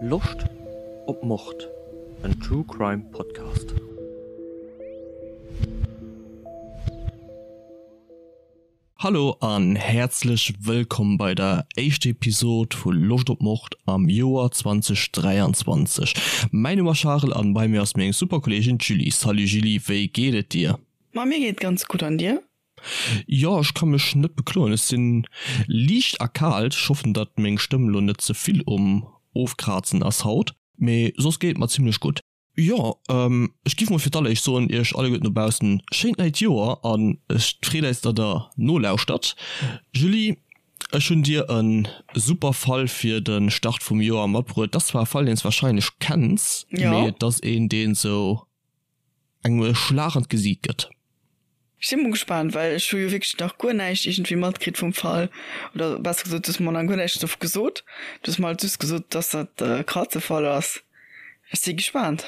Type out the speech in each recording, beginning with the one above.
Loscht op Mord? En True Crime Podcast. Hallo an häerzlech wëllkomm bei der éischter Episode vu Loscht op Mord am Joer 2023. Mäin Numm ass Charel an bei mir ass meng super Kolleegin d'Julie. Salut Julie, wéi geet et dir? Ma mir geet ganz gutt an dir? Jo ech ka mech net bekloen, ech sinn liicht erkaalt, ech hoffen datt meng Stëmm lo net ze vill um ofkrazen ass haut, mee soss geet et mer zimlech gutt. Jo ech giff mol fir d'alleréischt soen iech alleguerten dobaussen schéint neit Joer an ech freet eis datt der nolauschtert. Julie ech hunn dir en super Fall fir den Start vum Joer matbruet, d'ass zwar e Fall deen s wahrscheinlech kenns, mee et ass een deen sou engem e Schlag an d'Gesiit gëtt. Ech si mol gespaant, well ech hu jo wierklech nach guer näischt iergendwéi matkritt vum Fall, oder besser gesot, du hues mer nach guer näischt dovu gesot. Du hues mer halt just gesot, dass dat e Krazefall ass. Ech si gespaant.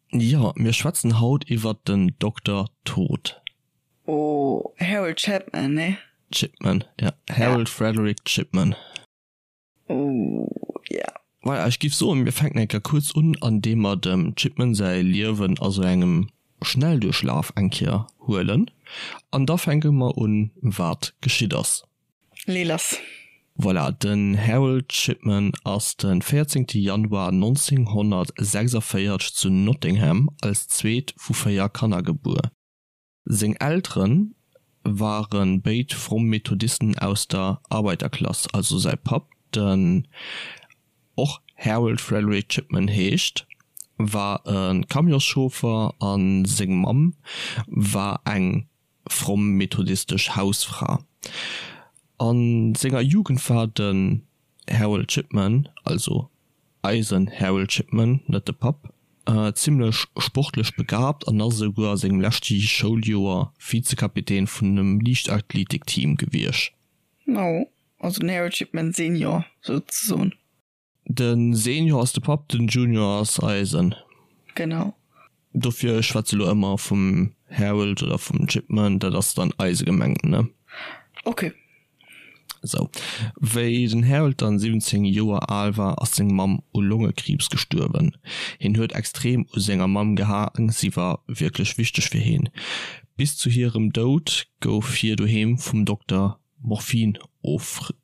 Jo, mir schwätzen haut iwwert den Dokter Tod. Oh, Harold Chapman, nee? Chipman, ja, Harold Frederic Chipman. Oh yeah. Voilà, ech giff soen, mir fänken eng Kéier kuerz un, an deem mer dem Chipman säi Liewen a sou engem Schnellduerchlaf eng Kéier huelen, an da fänke mer un, wat geschitt ass. Lee lass. Voilà, den Harold Chipman ass de 14 Januar 1946 zu Nottingham als zweet vu 4 Kanner gebuer. Seng Eltere ware béid fromm Methodisten aus der Arbeiterklass, also säi Papp, den och Harold Frederick Chipman heescht, war e Camionschauffer a seng Mamm war eng fromm methodistesch Hausfra. A senger Jugend war den Harold Chipman, also eisen Harold Chipman, net de Papp, zimmlech sportlech begabt an ass esouguer a sengem leschte Schouljoer Vizekapitän vun engem Liichtathletikteam gewiescht. Oh, also den Harold Chipman Senior souzesoen. De Senior ass de Papp, den Junior ass eisen. Genau. Dofir, ech schwätze lo ëmmer vum Harold oder vum Chipman, dat ass dann eise gemengt, ne? Ok. Sou. Wéi den Harold dann 17 Joer al war, ass seng Mamm u Longekriibs gestuerwen. Hien huet extrem u senger Mamm gehaang, si war wierklech wichteg fir hien. Bis zu hirem Doud gouf hir doheem vum Dokter Morphin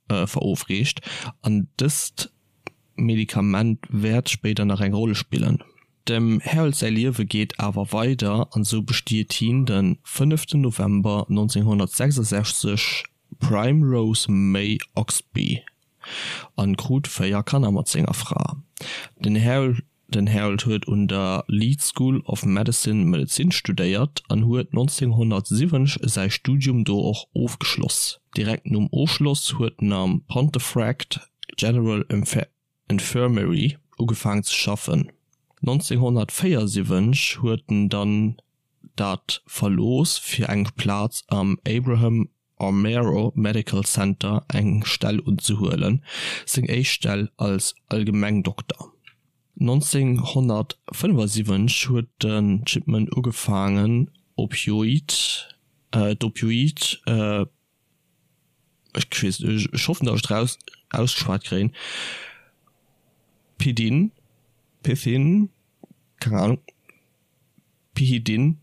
verofreecht an dëst Medikament wäert spéider nach eng Roll spillen. Dem Harold säi Liewe geet awer weider an sou bestiet hien de fënneften November 1966 Primrose May Oxby an krut 4 Kanner mat senger Fra. Den Den Harold huet un der Leeds School of Medicine Medezin studéiert an huet 1970 säi Studium do och ofgeschloss. Direkt nom Ofschloss huet en am Pontefract General Infirmary ugefaang ze schaffen. 1974 huet en dann dat verlooss fir eng Plaz am Abraham Armero Medical Center eng Stell unzehuelen, seng éischt Stell als Allgemengdokter. 1975 huet den Chipman ugefaangen Opioid, d'Opioid, ech weess net, ech hoffen datt ech et raus ausgeschwat kréien, Pidin, Pithin, keng Ahnung, Pihidin,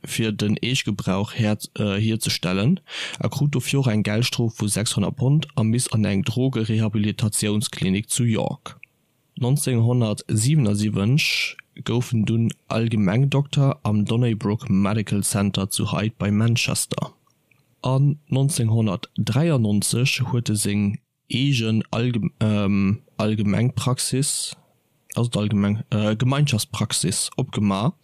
fir den Eegegebrauch hierzestellen a krut dofir och eng Geldstrof vu 600 Pond a miss an eng Drogerehabilitatiounsklinik zu York. 1977 gouf en dunn Allgemengdokter am Donnybrook Medical Center zu Hyde bei Manchester an 1993 huet e seng eegen Allgemengpraxis, ass et allgemeng, Gemeinschaftspraxis opgema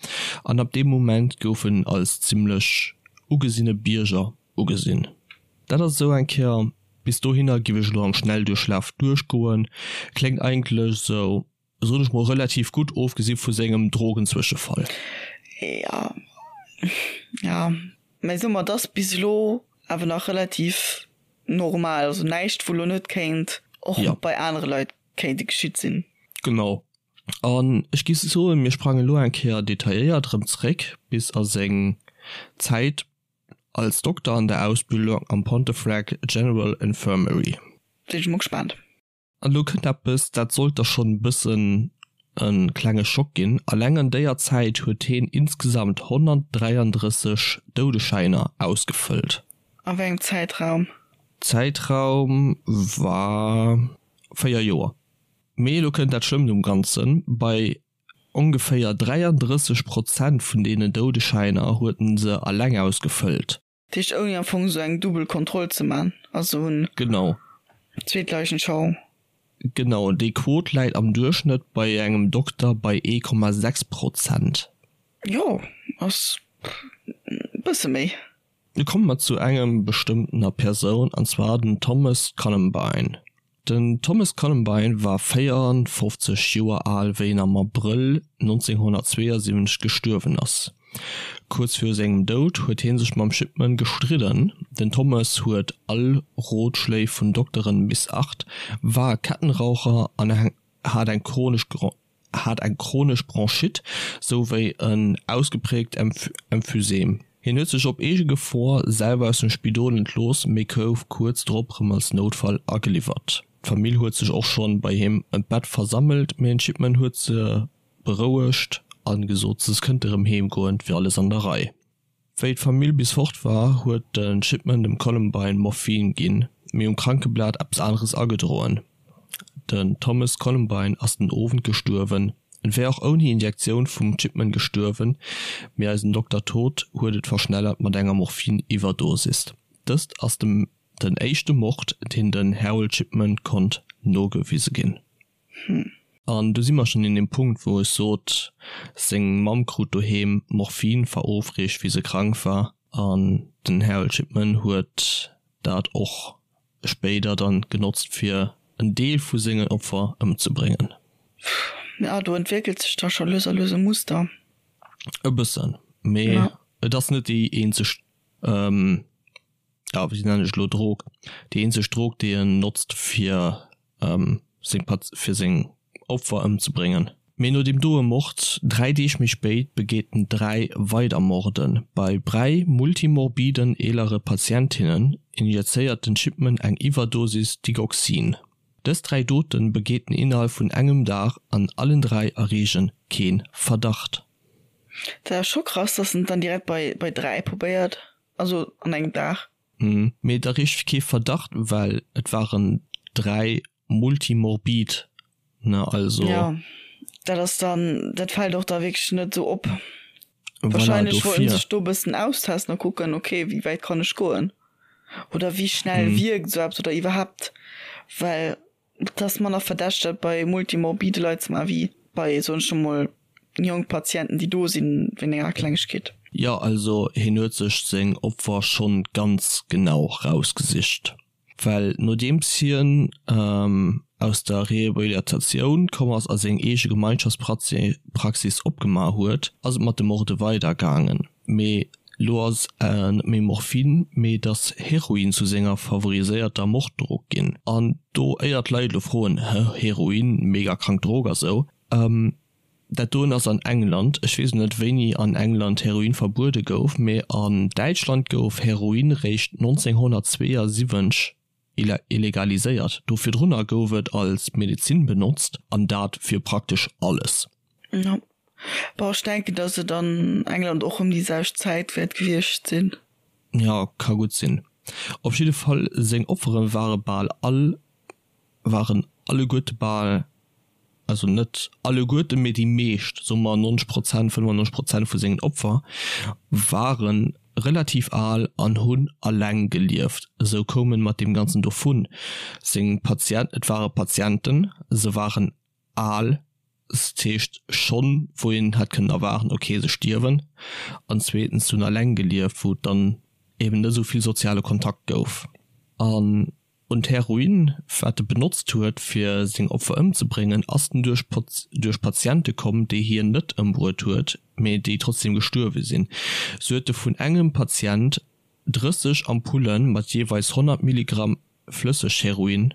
an ab deem Moment gouf en als zimmlech ugesinne Bierger ugesinn. Dat ass esou eng Kéier, bis dohinner giff ech elo am Schnellduerchlaf duerchgoen, kléngt eigentlech esou soen ech mol, relativ gutt, ofgesi vu sengem Drogenzwëschefall. Jo, jo, mä soe mer, et ass bis elo awer nach relativ normal, also näischt wou elo net kéint och bei anere Leit kéinte geschitt sinn. Genau. An ech géif soen, mir sprangen elo eng Kéier detailléiert erëm zeréck bis a seng Zäit als Dokter an der Ausbildung am Pontefract General Infirmary. Sinn ech mol gespaant. An elo kënnt eppes, dat sollt der schonn e bëssen e klenge Schock ginn, Alleng an déier Zäit huet heen insgesamt 133 Doudeschäiner ausgefëllt. A wéi engem Zäitraum? Zäitraum war 4 Joer. Mee elo kënnt dat Schlëmmt um Ganzen, Bei ongeféier 33 Prozent vun deenen Doudeschäiner huet en se alleng ausgefëllt. Dat heescht ouni am Fong esou eng dubbel Kontroll ze man, also hunn Genau. zweet Leichenschau. Genau, déi Quot läit am Duerchschnëtt bei engem Dokter bei 1,6 Prozent. Jo, ass e bësse méi. Nu komme mer zu engem bestëmmtener Persoun, an zwar den Thomas Columbine. Den Thomas Columbine war 54 Joer al wéi en am Abrëll 1972 gestuerwen ass. Kuerz viru sengem Doud huet hie sech mam Shipman gestridden. Den Thomas huet all Rotschléi vun Dokteren missacht, war Kettenraucher an hat eng chronesch hat eng chronesch Bronchite souwéi en ausgepräägt Emphysem. Hien huet sech op eege Gefor selwer aus dem Spidol entlooss, mee gouf kuerz drop rëm als Noutfall ageliwwert. D'Famill huet sech och schonn bei him ëm d'Bett versammelt, mee den Shipman huet se berouegt a gesot, se kënnte rëm heem goen, et wier alles an der Rei. Wéi d'Famill bis fort war, huet de Shipman dem Columbine Morphin ginn, mee um Krankeblat eppes aneres agedroen. Den Thomas Columbine ass den Owend gestuerwen. En wär och ouni Injektioun vum Shipman gestuerwen, mee eisen Dokter Toth huet et verschnellert mat enger Morphin-Iwwerdosis. Dëst ass dem den éischte Mord, deen den Harold Shipman konnt nogewise ginn. An do si mer schonn un deem Punkt, wou ech sot, seng Mamm krut doheem Morphin verofreecht, wéi se krank war. An den Harold Shipman huet dat och spéider dann genotzt, fir en Deel vu sengen Opfer ëmzebréngen. Jo, do entwéckelt sech da scho lues a lues e Muster. E bëssen, mee et ass net déi eenzeg ja wéi nennen ech elo Drog, déi eenzeg Drog déi en notzt fir seng Pat fir seng Opfer ëmzebréngen. Mee no deem doe Mord, 3 Deeg méi spéit, begeet en 3 weider Morden. Bei 3 multimorbiden eelere Patientinnen injezéiert den Shipman eng Iwwerdosis Digoxin. Dës 3 Doten begeet en innerhalb vun engem Dag an allen 3 erreegen keen Verdacht. Dat ass scho krass, dass en et dann direkt bei bei 3 probéiert. Also an engem Dag. Mee et erreecht kee Verdacht, well et waren 3 multimorbid, ne, also. Jo, dat ass dann, dat fält och da wierklech net esou op. Voilà, Wahrscheinlech wollten sech do e bëssen austesten a kucken, okay, wéi wäit kann ech goen oder wéi schnell wierkt esou eppes oder iwwerhaapt, well Et ass manner verdächteg bei multimorbide Leit ze maachen, wéi bei, soen ech emol, jonk Patienten, déi do sinn wéint enger Klengegkeet. Jo, also hien huet sech seng Opfer schonn ganz genau rausgesicht, well nodeems hien aus der Rehabilitatioun komm ass a seng eege Gemeinschaftspraxis opgemaach huet, ass et mat de Morde weidergaangen. Mee lo ass net méi Morphin, mee et ass Heroin zu senger favoriséierter Morddrog ginn. An do éier d'Leit elo froen, hë, Heroin, mega krank Drog a sou, dat doen ass an England, ech weess net wéini an England Heroin verbuede gouf, mee an Däitschland gouf Heroin réischt 1972 illegaliséiert. Do virdrunner gouf et als Medezin benotzt, an dat fir praktesch alles. Jo, bon ech denken dass et an England och ëm déi selwecht Zäit wäert gewiescht sinn. Jo, ka gutt sinn. Op jidde Fall seng Opfere ware bal all, waren alleguerte bal, also net alleguerten, mee déi meescht, soe mer 90 Prozent, 95 Prozent vu sengen Opfer ware relativ al an hunn alleng gelieft. Esou koum en mat deem Ganzen dovun. Seng Patient, et ware Patienten, se waren al, dat heescht schonn wou een hätt kënnen erwaarden, ok se stierwen, an zweetens se hunn alleng gelieft, wou et dann eben net esou vill soziale Kontakt gouf. An un d'Heroin, wat e benotzt huet fir seng Opfer ëmzebréngen, ass en duerch duerch Patiente komm, déi hien net ëmbruet huet, mee déi trotzdem gestuerwe sinn. Sou huet e vun engem Patient 30 Ampulle mat jeeweils 100 Milligramm Flëssegheroin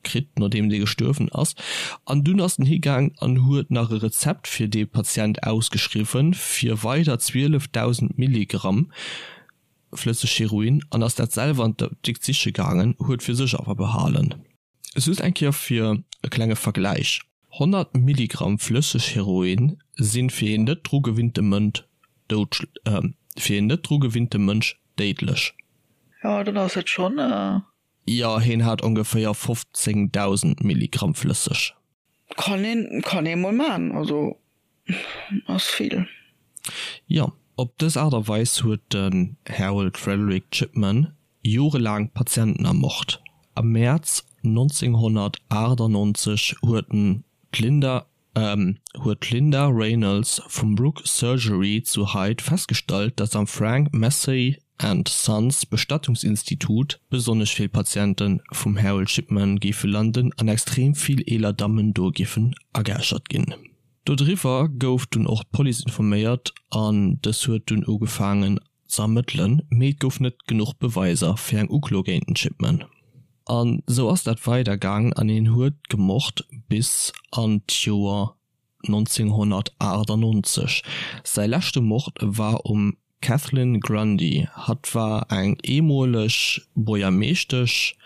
kritt, nodeem dee gestuerwen ass. An dunn ass en higaang an huet nach e Rezept fir dee Patient ausgeschriwwen, fir weider 12.000 Milligramm Flëssegheroin an ass dat selwer an d'Apdikt siche gaangen, huet fir sech awer behalen. Just eng Kéier fir e klenge Vergläich, 100 Milligramm flësseg Heroin sinn fir een net dru gewinnte Mënsch doudsch fir een net dru gewinnte Mënsch déidlech. Jo, dann ass et schonn. Jo, heen hat ongeféier 15.000 Milligramm flësseg. Kann een, kann ee mol maan, also ass vill. Jo, op dës Aart a Weis huet den Harold Frederic Shipman jorelaang Patienten ermort. Am Mäerz 1998 huet en d'Linda huet d'Linda Reynolds vum Brook Surgery zu Hyde festgestallt, datt am Frank Massey and Sons Bestattungsinstitut besonnesch vill Patiente vum Harold Shipman géife landen an extrem vill eeler Dammen do géifen ageäschert ginn. Dodriwwer gouf dunn och d'Police informéiert an dës huet dunn ugefaangen ze ermëttelen, mee et gouf net genuch Beweiser fir eng Uklo géint den Shipman. An sou ass dat weider gaangen an hien huet gemort bis an d'Joer 1998. Säi leschte Mord war um Kathleen Grundy. Hatt war eng eemoleg Buergermeeschtesch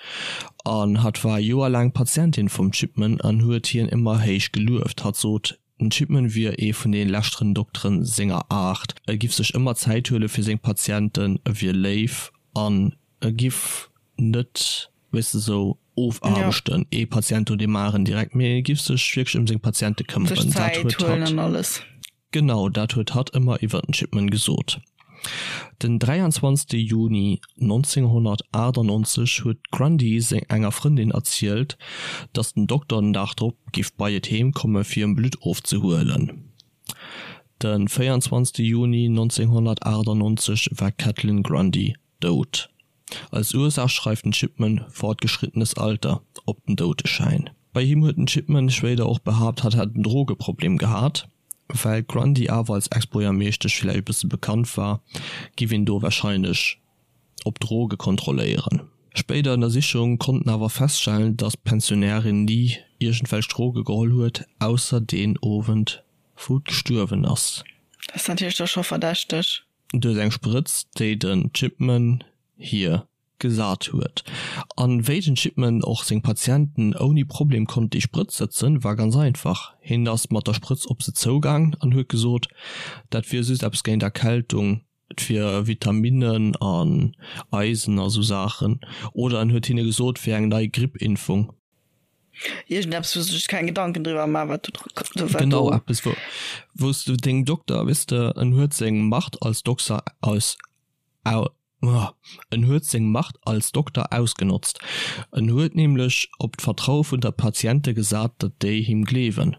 an hatt war joerlaang Patientin vum Shipman an huet hien ëmmer héich gelueft. Hatt sot, Den Shipman wier ee vun de leschteren Dokteren senger Aart. E giff sech ëmmer Zäit huele fir seng Patienten, e wier léif an e giff net, weess de, sou ofaarbechten, ee Patient no deem aneren direkt, mee e giff sech wierklech ëm seng Patiente këmmeren. Dat huet hatt, genau, dat huet hatt ëmmer iwwer den Shipman gesot. Den 23 Juni 1998 huet d'Grundy enger Frëndin erzielt, datt den Dokter den Dag drop géif bei et heem komme fir em Blutt ofzehuelen. De 24 Juni 1998 war d'Kathleen Grundy dout. Als Ursaach schreift den Shipman fortgeschrittenes Alter op den Doudeschäin. Bei him huet den Shipman spéider och behaapt, hatt hätt en Drogeproblem gehat. Well d'Grundy awer als Ex-Buergermeeschtesch villäicht e bësse bekannt war, giff een do warscheinlech op Droge kontrolléieren. Spéider Ënnersichunge konnten awer feststellen, datt d'Pensionärin ni iergendwelch Droge geholl huet, ausser deen Owend wou d'gestuerwen ass. Dat ass natierlech da scho verdächteg. Duerch eng Sprëtz, déi den Chipman hir gesat huet. An wéi den Chipman och seng Patienten ouni Problem konnt déi Sprëtz sëtzen, war ganz einfach, Hien ass mat der Sprëtz op se zougaang an huet gesot, dat wier just eppes géint Erkältung, et wier Vitaminnen an Eisen a sou Saachen, oder en huet hinne gesot, et wier eng nei Grippimpfung. Iergendeppes wou se sech keng Gedanken driwwer man wat do wat Genau eppes wou wou s du dengem Dokter weess de en huet seng Macht als Dokser aus au en huet seng Macht als Dokter ausgenotzt. En huet nämlech op d'Vertraue vun der Patiente gesat, datt déi him gleewen.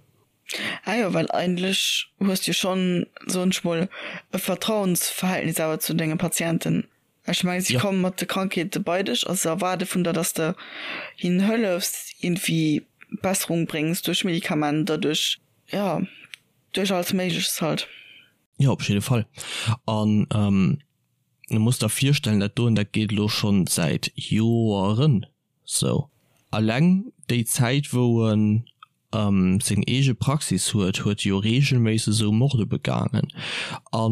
Ah jo, well eigentlech hues du jo schonn, soen ech mol, e Vertrauensverhältnis awer zu denge Patienten. Ech mengen, si komme mat de Krankheete bei dech a se erwaarde vun der, dass de hinnen hëllefs, iergendwéi Besserung bréngs duerch Medikamenter, duerch, jo, duerch alles Méigleches halt. Jo, op jidde Fall. An du muss der virstellen, dat doen, dat geet elo schonn säit Joeren sou. Alleng déi Zäit, wou en seng eege Praxis huet, huet e jo reegelméisseg esou Morde begaangen. A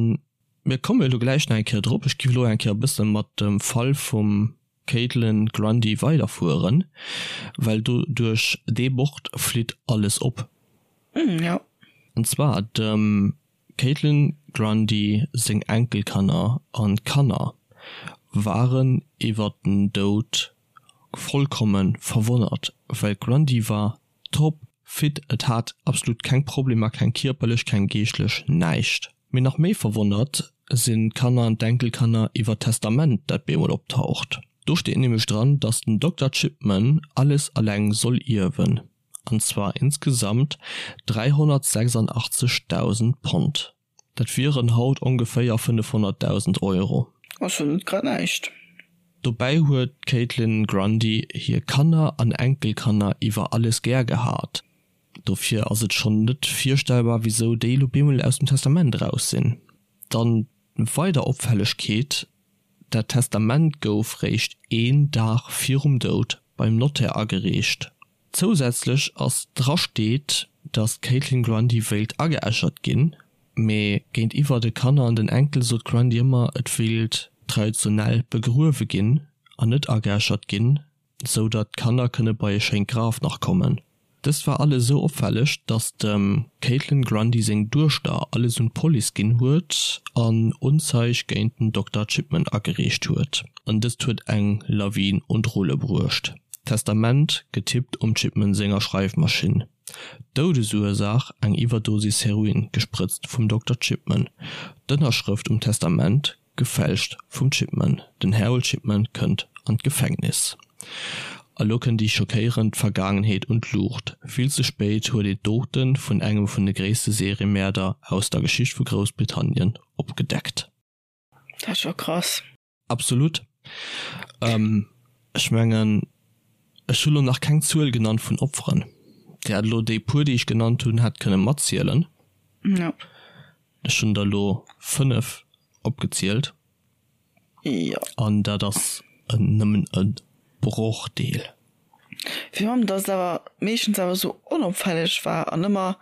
mir komme elo gläich nach eng Kéier drop, ech giff elo eng Kéier e bësse mat dem Fall vum Kaitlyn Grundy weiderfueren, well do duerch dee Mord flitt alles op. An zwar dem Kaitlyn Grundy seng Enkelkanner an Kanner waren iwwer den Doud vollkommen verwonnert, well d'Grundy war top fit, et hat absolut keng Problemer, keng kierperlech, keng geeschtlech, näischt. Mee nach méi verwonnert sinn d'Kanner an d'Enkelkanner iwwer d'Testament, dat bemol optaucht. Do steet nämlech dran, dass den Dokter Chipman alles alleng soll ierwen, an zwar insgesamt 386.000 Pond. Dat wieren haut ongeféier 500.000 Euro. Ass jo net grad näischt. Dobäi huet d'Kaitlyn Grundy hir Kanner an Enkelkanner iwwer alles gär gehat. Dofir ass et schonn net virstellbar, wisou déi elo bemol aus dem Testament eraus sinn. Dann weider Opfällegkeet, Dat Testament gouf réischt een Dag virum Doud beim Notaire agereecht. Zousätzlech ass dra steet, datt d'Kaitlyn Grundy wéilt ageäschert ginn, mee géintiwwer de Kanner an den Enkel sot d'Grundy ëmmer, et wéilt traditionell begruewe ginn an net ageäschert ginn. Sou datt d'Kanner kënne bei e schéint Graf nach kommen. Dëst war alles esou opfälleg, datt dem Caitlin Grundy seng Duechter alles un d'Police ginn huet an Unzeig géint den Dokter Chipman agereecht huet. An dëst huet eng Lawin un d'Rulle bruecht. Testament, getippt um Chipman senger Schreifmaschinn. Doudesursaach, eng Iwwerdosis Heroin, gesprëtzt vum Dokter Chipman. D'Ënnerschrëft um Testament, Gefälscht vum Chipman. Den Harold Chipman kënnt an d'Gefängnis. A lo kënnt déi schockéierend Vergaangenheet un d'Luucht. Vill ze spéit huet een d'Dote vun engem vun de gréisste Seriemäerder aus der Geschicht vu Groussbritannien opgedeckt. Dat ass scho krass. Absolut. Ech mengen, ech hu lo nach keng Zuel genannt vun Opferen. Dir hätt elo déi puer, déi ech genannt hunn, hätt kënne matzielen. Jo. Ech hunn der elo 5 opgezielt. Jo. An dat ass nëmmen e Brochdeel. Virun allem, datt et awer meeschtens awer esou onopfälleg war an ëmmer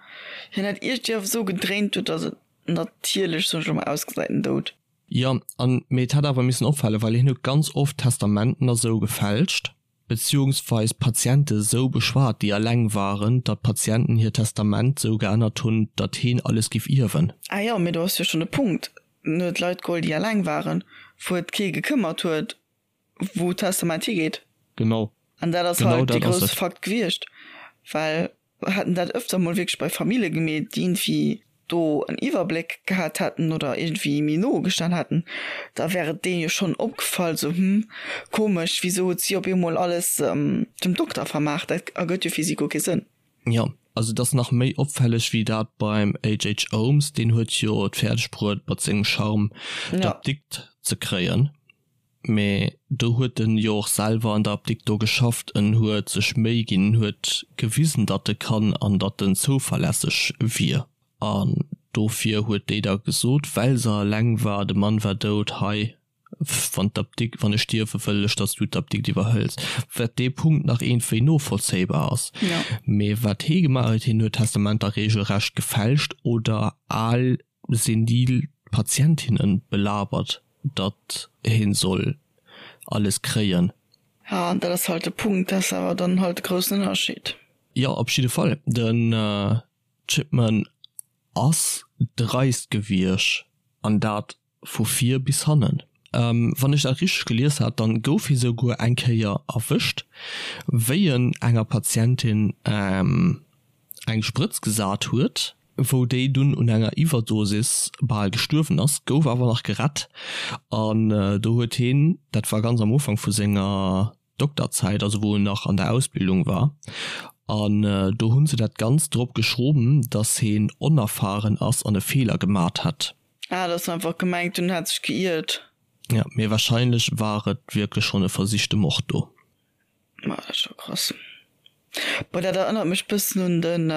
hien dat iergendwéi awer esou gedréint huet, datt et natierlech, soen ech elo mol, ausgesäit, den Doud. Jo, an mee et hätt awer missen opfalen, well hien huet ganz oft Testamenten a sou gefälscht. Beziehungsweis Patiente sou beschwat, déi alleng waren, datt d'Patienten hiert Testament sou geännert hunn, datt heen alles giff ierwen. Ah jo, mee do ass jo schonn de Punkt, en huet Leit geholl, déi alleng waren, wou et kee gekëmmert huet, wou d'Testament higeet. Genau. An dat ass Genau halt dee dat ass grousse et. Fakt gewiescht, well hätt en dat öfter mol wierklech bei Famille gemeet, déi iergendwéi do en Iwwerbléck gehat hätten oder iergendwéi méi no gestan hätten, da wär et deenen jo schonn opgefall, sou, hm, komesch, wisou huet si op eemol alles dem Dokter vermaach, dat ergëtt jo fir si guer kee Sënn. Jo, also et ass nach méi opfälleg wéi dat beim HH. Holmes, deen huet jo et fäerdeg bruet mat sengem Charme d'Apdikt ze kréien. Mee do huet en jo och selwer an der Apdikt do geschafft, en huet sech Méi ginn, en huet gewisen, datt e kann an datt en zouverlässeg wier. An dofir huet déi da gesot, well se eleng war, de Mann war dout, hei, wann d'Apdikt, wann ech stierwe wëll ech, datt s du d'Apdikt iwwerhëls. Wat dee Punkt nach iergendwéi novollzéibar ass. Mee wat hee gemaach huet, hien huet Testamenter regelrecht gefälscht oder al senil Patientinnen belabert, datt heen soll alles kréien. Ja, an dat ass halt de Punkt, dat ass awer dann halt de groussen Ënnerscheed. Jo, op jidde Fall. Den Chipman ass dreist gewiescht, an dat vu vir bis hannen. Wann ech dat richteg gelies hat, dann gouf hie souguer eng Kéier erwëscht, wéi en enger Patientin eng Sprëtz gesat huet, wou déi dunn un enger Iwwerdosis bal gestuerwen ass, gouf awer nach gerett an do huet heen, dat war ganz am Ufank vu senger Dokterzäit, also wou en nach an der Ausbildung war, an do hunn se dat Ganzt drop geschroben, datt heen onerfahren ass an e Feeler gemat hätt. Ah, datt se einfach gemengt hunn, en hätt sech geiert. Jo, mee wahrscheinlech war et wierklech schonn e versichte Mord do. Ma dat ass scho krass. Bon, dat erënnert mech bëssen un den,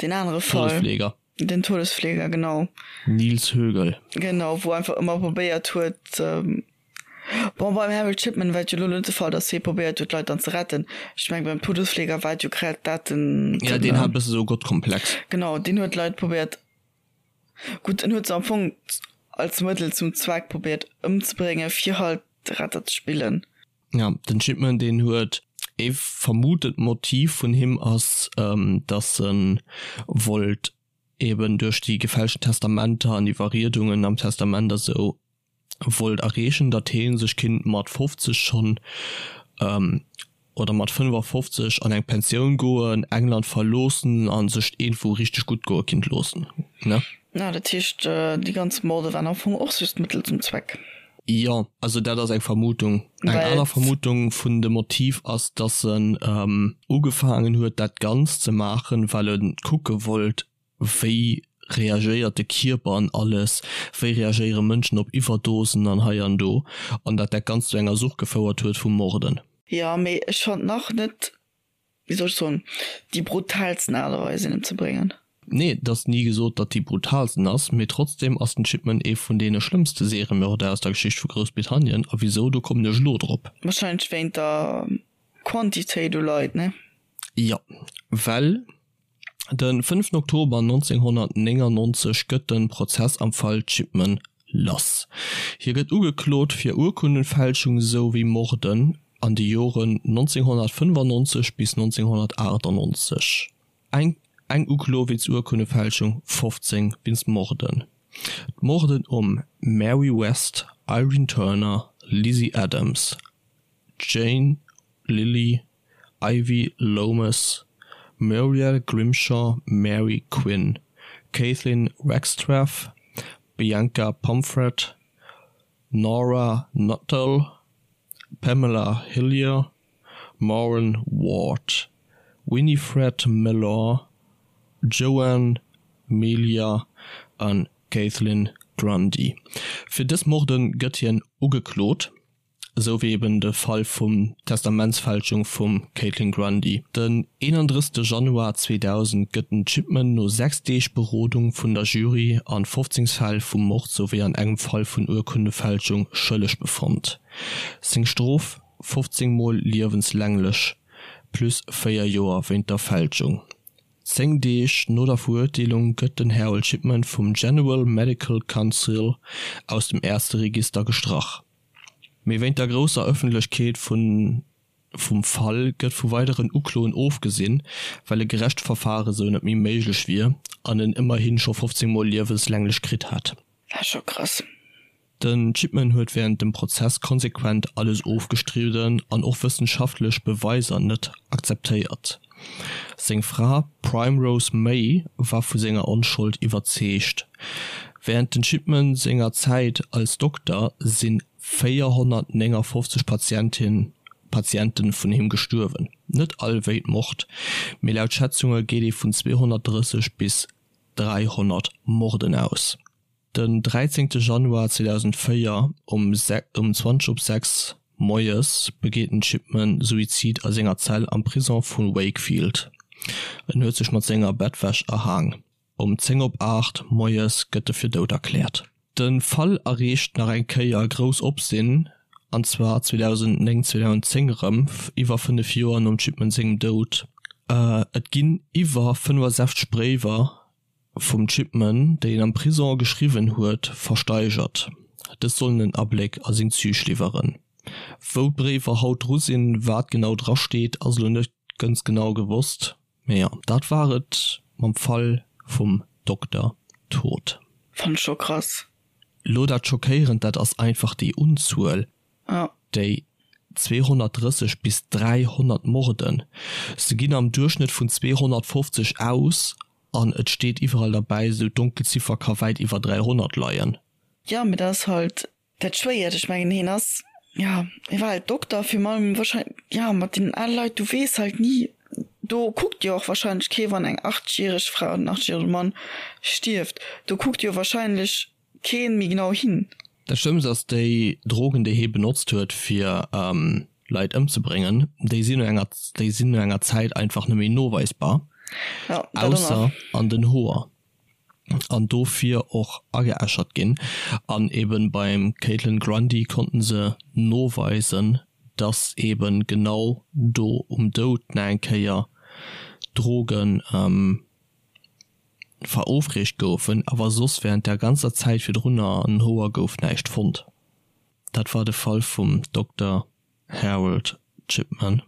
deen anere Fall. Todesfleger. Den Todesfleger, genau. Nils Högel. Genau, wou einfach ëmmer probéiert huet, bon, beim Harold Shipman war et jo elo net de Fall, datt hie probéiert huet, d'Leit dann ze retten. Ech mengen, beim Todesfleger war et jo grad dat den. Ja, deen hat e bësse sou e Gottkomplex. Genau, deen huet d'Leit probéiert, gutt, en huet se am Fong als Mëttel zum Zweck probéiert ëmzebréngen, fir halt de Retter ze spillen. Ja, den Shipman deen huet ee vermutet Motiv vun him ass, datt en wollt eben duerch déi gefälschten Testamenter an Iwwerriedungen am Testament a sou wollt erreechen, datt hee sech kinnt mat 50 schonn oder mat 55 an eng Pensioun goen, England verloossen a sech iergendwou richteg gutt goe kinnt loossen, ne? Na, dat heescht, déi ganz Morde waren am Fong och just Mëttel zum Zweck? Jo, also dat ass eng Vermutung. Eng aner Vermutung vun dem Motiv ass, dass en ugefaangen huet dat Ganzt ze maachen, well e kucke wollt, wéi reagéiert de Kierper an alles, wéi reagéiere Mënschen op Iwwerdosen an hei an do, an dat dat Ganzt zu enger Sucht gefouert huet vum Morden. Jo, mee ech fannt nach net, wéi soll ech soen, déi brutaalsten Aart a Weis een emzebréngen. Nee, et ass ni gesot, datt déi brutaalsten ass, mee trotzdem ass den Chipman ee vun deene schlëmmste Seriemörder aus der Geschicht vu Groussbritannien. A wisou, do kommen ech elo drop. Wahrscheinlech wéint der Quantitéit u Leit, ne? Jo, well de fënneften Oktober 1999 gëtt de Prozess am Fall Chipman lass. Hie gëtt ugeklot fir Urkundenfälschung esou wéi Morden. an de Joren 1995 bis 1998. Eng eng Uklo wéinst Urkunnefälschung, 15 wéinst Morden. D'Morden um Mary West, Irene Turner, Lizzie Adams, Jane Lilly, Ivy Lomas, Muriel Grimshaw, Mary Quinn, Kathleen Wagstaff, Bianca Pomfret, Nora Nuttall, Pamela Hillier, Maureen Ward, Winifred Mellor, Joan Melia a Kathleen Grundy. Fir dës Morde gëtt hien ugeklot. esou wéi eben de Fall vum Testamentsfälschung vum Caitlin Grundy. Den 31 Januar 2000 gëtt den Chipman no 6 Deeg Berodung vun der Jury an 15 Fäll vu Mord souwéi an engem Fall vun Urkundefälschung schëlleg befonnt. Seng Strof, 15 mol liewenslänglech plus 4 Joer wéint der Fälschung. 10 Deeg no der Verurteelung gëtt den Harold Shipman vum General Medical Council aus dem Ärzteregister gestrach. Mee wéint der grousser Ëffentlechkeet vun vum Fall gëtt vu weideren Ukloen ofgesinn, well e gerecht Verfare sou net méi méiglech wier an en ëmmerhi scho 15 mol liewenslänglech kritt hätt. Dat ass scho krass. Den Chipman huet wärend dem Prozess konsequent alles ofgestridden an och wëssenschaftlech Beweiser net akzeptéiert. Seng Fra Primrose May war vu senger Onschold iwwerzeegt. Wärend den Chipman senger Zäit als Dokter si 459 Patientin Patiente vun him gestuerwen. Net all wéint Mord, mee laut Schätzunge geet ee vun 230 bis 300 Morden aus. Den 13 Januar 2004 um 20 op 6 moies begeet den Chipman Suizid a senger Zell am Prison vu Wakefield. En huet sech mat senger Bettwäsch erhaang. Um 10 op 8 moies gëtt e fir dout erkläert. De Fall erreecht nach eng Kéier grouss Opsinn, an zwar 2009, 2010 erëm, iwwer 5 Joer nom Chipman sengem Doud. Et ginn iwwer 65 Bréiwer vum Chipman, déi en am Prison geschriwwen huet, versteigert. Dës sollen en Abléck a seng Züg liwweren. Wou d'Bréiwer haut dru sinn, wat genau dra steet, ass elo net ganz genau gewosst. Mee jo, dat war et mam Fall vum Dokter Todt. Fann ech scho krass. Lo dat schockéierend, dat ass einfach déi Unzuel. Déi 230 bis 300 Morden, se ginn am Duerchschnëtt vun 250 aus an et steet iwwerall derbäi, esou d'Donkelziffer ka wäit iwwer 300 leien. Jo, mee dat ass halt dat Schwéiert. Ech mengen, hien ass, jo, hie war halt Dokter, virun allem wahrscheinlech, jo, mat deenen ale Leit, du weess halt ni, do kuckt jo och wahrscheinlech kee wann eng 80 järeg Fra oder en 80 järege Mann stierft, do kuckt jo wahrscheinlech keen méi genau hin. Dat Schlëmmst ass, déi Drogen déi hee benotzt huet fir Leit ëmzebréngen, déi sinn no enger déi sinn no enger Zäit einfach net méi noweisbar, ausser an den Hoer, an dofir och ageäschert ginn. An eben beim Caitlin Grundy konnten se noweisen, dass eben genau do um Doud nach eng Kéier Drogen Verofreegt goufen, awer soss während der ganzer Zäit virdrunner an Hoer gouf näischt fonnt. Dat war de Fall vum Dokter Harold Chipman.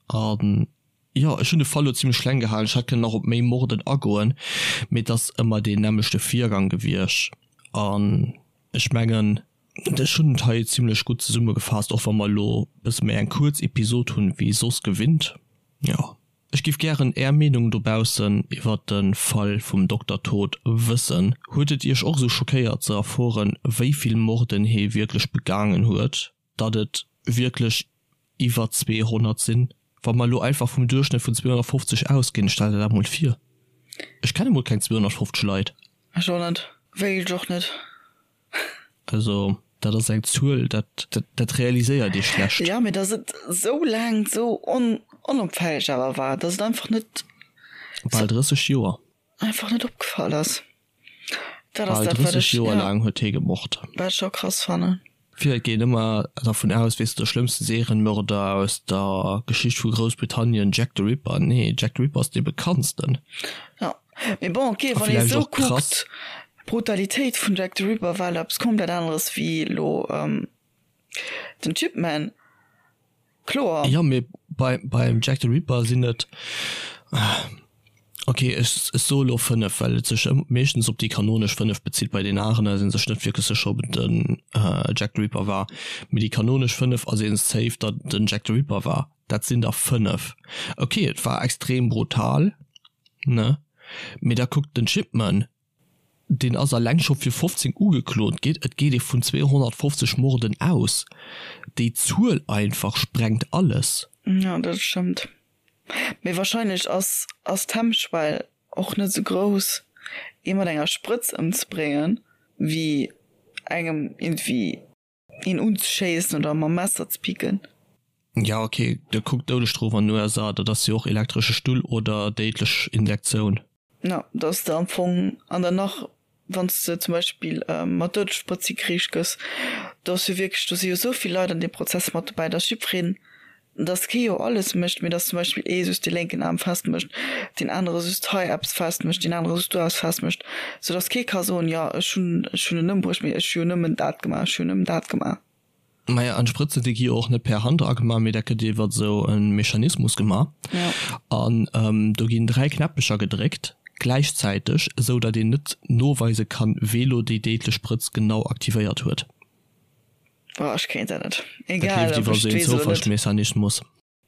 An jo, ech hunn de Fall lo zimlech kleng gehalen, ech hätt kënnen nach op méi Morden agoen, mee et ass ëmmer deen nämmlechte Virgang gewiescht an ech mengen, ech hunn et hei zimlech gutt zesummegefaasst, och wa mer elo e bësse méi eng kuerz Episod hunn wéi soss gewinnt. Jo. Ech giff gären är Meenung dobaussen iwwert de Fall vum Dokter Todt wëssen. Huet et iech och esou schockéiert ze erfueren wéi vill Morden hee wierklech begaangen huet, datt et wierklech iwwer 200 sinn? Wa mer elo einfach vum Duerchschnëtt vun 250 ausginn, stell der dat mol vir. Ech kenne mol keng 250 Leit. Ech och net. Wéilt ech och net. Also dat ass eng Zuel, dat, dat realiséiert ee schlecht. Jo, mee datt et esou laang esou onopfälleg awer war, datt et einfach net. Bal 30 Joer. Einfach net opgefall ass. Dat ass dat, wat ech. Bal 30 Joer laang huet hie gemord. Wat ech scho krass fannen. Vill Leit ginn ëmmer dervun aus, weess de, de schlëmmste Serienmörder aus der Geschicht vu Groussbritannien, Jack the Ripper. Nee, Jack the Ripper ass dee bekanntsten. Jo. Mee bon, ok, wann ee sou kuckt, d'Brutalitéit vun Jack the Ripper war elo eppes komplett aneres wéi elo den Chipman. Kloer. Jo, mee bei, beim Jack the Ripper sinn et, ok, ech, ech soe lo 5, well et sech meeschtens op déi kanonesch 5 bezitt. Bei den anere si sech net wierklech sécher, ob et den Jack the Ripper war. Mee déi kanonesch 5 ass ee safe, datt et den Jack the Ripper war. Dat sinn der 5. Ok, et war extrem brutal, ne? Mee da kuckt den Shipman, Deen ass alleng scho fir 15 ugeklot ginn. Et geet ee vun 250 Morden aus. Déi Zuel einfach sprengt alles. Jo, dat stëmmt. Mee wahrscheinlech ass ass d'Hemmschwell och net esou grouss, ee mat enger Sprëtz ëmzebréngen, wéi engem iergendwéi een unzeschéissen oder mam Messer ze picken. Ja ok, da kuck d'Doudesstrof an den USA, dat ass jo och elektresche Stull oder déidlech Injektioun. Ja, dass de am Fong an der nach wann s de zum Beispill mat Doudessprëtz hikriich gëss, do ass jo wierklech, do si jo esou vill Leit an deem Prozess mat dobäi, dass jiddwereen dass kee jo alles mécht, mee dass zum Beispill ee just dee lénken Aarm festmécht, deen anere just hei eppes festmécht, deen anere just do eppes festmécht, sou dass kee ka soen, jo ech hunn ech hunn en ëmbruecht, mee ech hu jo nëmmen dat gemaach, ech hu jo nëmmen dat gemaach. Maja, an d'Sprëtzen, déi gi jo och net per Hand agemaach, mee dat gëtt iwwer esou e Mechanismus gemaach. An do ginn 3 Knäppecher gedréckt gläichzäiteg, esou datt een net noweise kann, wee lo déi déidlech Sprëtz genau aktivéiert huet. Oh, ech kéint dat net. Dat Egal, leeft ob iwwer ech esou et een weess oder net. Zoufallsmechanismus.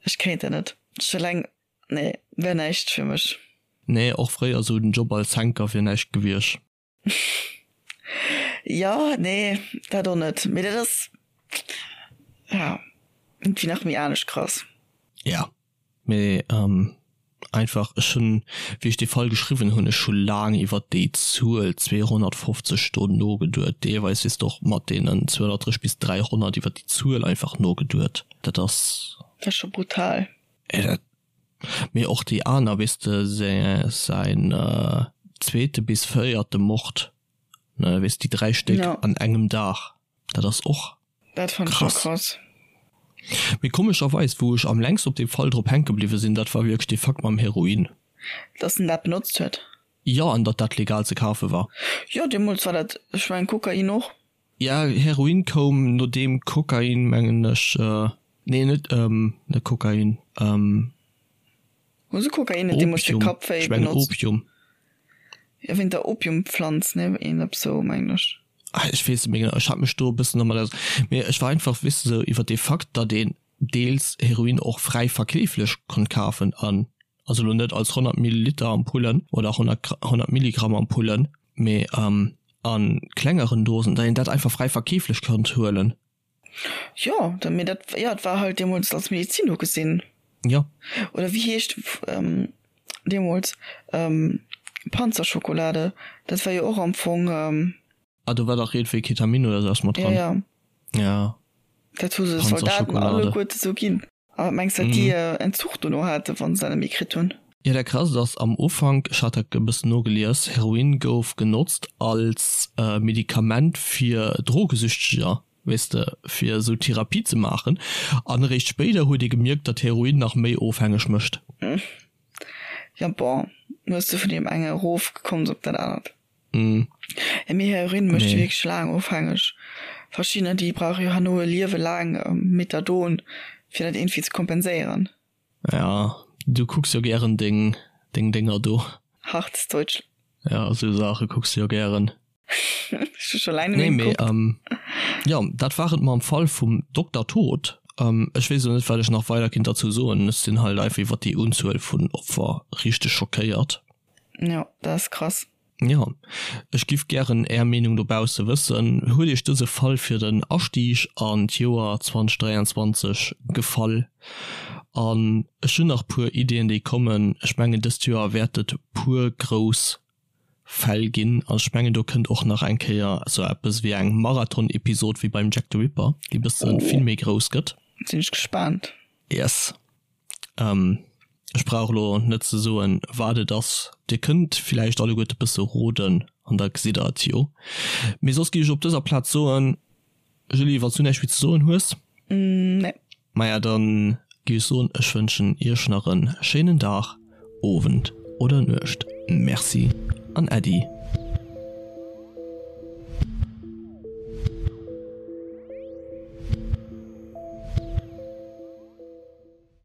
Ech kéint dat net. Ech eleng, nee, wär näischt fir mech. Nee, och fréier esou den Job als Henker wier näischt gewiescht. Jo, nee, dat och net. Mee dat ass, ja, iergendwéi nach méi anescht krass. Ja, mee einfach, ech hunn, wéi ech dee Fall geschriwwen hunn, ech hu laang iwwert déi Zuel 250 do nogeduet, deelweis weess de och mat deenen 230 bis 300 iwwert déi Zuel einfach nogeduet. Dat ass. Dat ass scho brutal. Dat, mee och déi aner, weess de, säin zweete bis véierte Mord, ne, weess déi 3 Stéck an engem Dag, dat ass och. Dat fand ech och krass. Mee komescherweis, wou ech am längsten op deem Fall drop hänke bliwwe sinn, dat war wierklech dee Fakt mam Heroin. Dass en dat benotzt huet? Jo, an datt dat legal ze kafe war. Jo, deemools war dat, ech mengen Kokain och. Ja, Heroin koum nodeem Kokain, mengen ech, nee net, net Kokain, Hu se Kokain net deemools fir Kappwéi benotzt? Opium. Jo, wéint der Opiumpflanz, ne, een eppes sou, mengen ech. Ah, ech weess net méi genau, ech hat mech do e bëssen domat aus, mee ech war einfach, weess de, sou iwwer dee Fakt, datt een deels Heroin och fräi verkeeflech konnt kafen an, also elo net als 100 Milliliter Ampullen oder 100, 100 Milligramm Ampullen, mee a klengeren Dosen, datt een dat einfach fräi verkeeflech konnt huelen. Jo, da mee dat, jo, et war halt deemools als Medizin ugesinn. Jo. Oder wéi heescht deemools Panzerschokolade, dat war jo och am Fong. Ah, do war dach iergendwéi Ketamin oder sou eppes mat dran. Jo, jo. Ja. Dat hu se de Soldaten alleguerte sou ginn. A wat mengs de, wat déi Entzuch dono haten, wa se dat net méi kritt hunn? Jo, dat Krasst ass, am Ufank, ech hat dat e bëssen nogelies, Heroin gouf genotzt als Medikament fir Drogesüchteger, weess de, fir esou Therapie ze maachen. An eréischt spéider huet ee gemierkt, datt Heroin nach méi ofhängeg mécht. Jo, bon, hues de vun deem enge erof gekomms op dat anert. Mee Heroin mécht wierklech laang ofhängeg. Verschiddener déi brauche jo herno e Liewe laang Methadon fir dat iergendwéi ze kompenséieren. Ja, du kucks jo gären deng deng Dénger do. Hartes Deutschland. Ja, esou Saache kucks de jo gären. Ech hu scho laang net méi gekuckt. Nee, mee jo, dat war et mam Fall vum Dokter Tod. Ech weess elo net, wat ech nach weider kinnt derzou soen. Ech sinn halt einfach iwwer déi Unzuel vun Opfer richteg schockéiert. Jo, dat ass krass. Jo, ech giff gären är Meenung dobausse wëssen. Huet iech dëse Fall fir den Astieg an d'Joer 2023 gefall? An ech hunn nach puer Iddien déi kommen. Ech mengen dëst Joer wäert et puer grouss Fäll ginn an ech mengen do kënnt och nach eng Kéier sou eppes wéi eng Marathon-Episod wéi beim Jack the Ripper, déi bësse vill méi grouss gëtt. Sinn ech gespaant. Yes. Ech brauch elo net ze soen, wat et ass. Dir kënnt villäicht alleguerte bësse roden an da gesitt der et jo. Mee soss géif ech op dëser Plaz soen, Julie, wann s du näischt méi ze soen hues? Nee. Maja, dann géif ech soen, ech wënschen iech nach e schéinen Dag, Owend oder Nuecht. Merci an Äddi.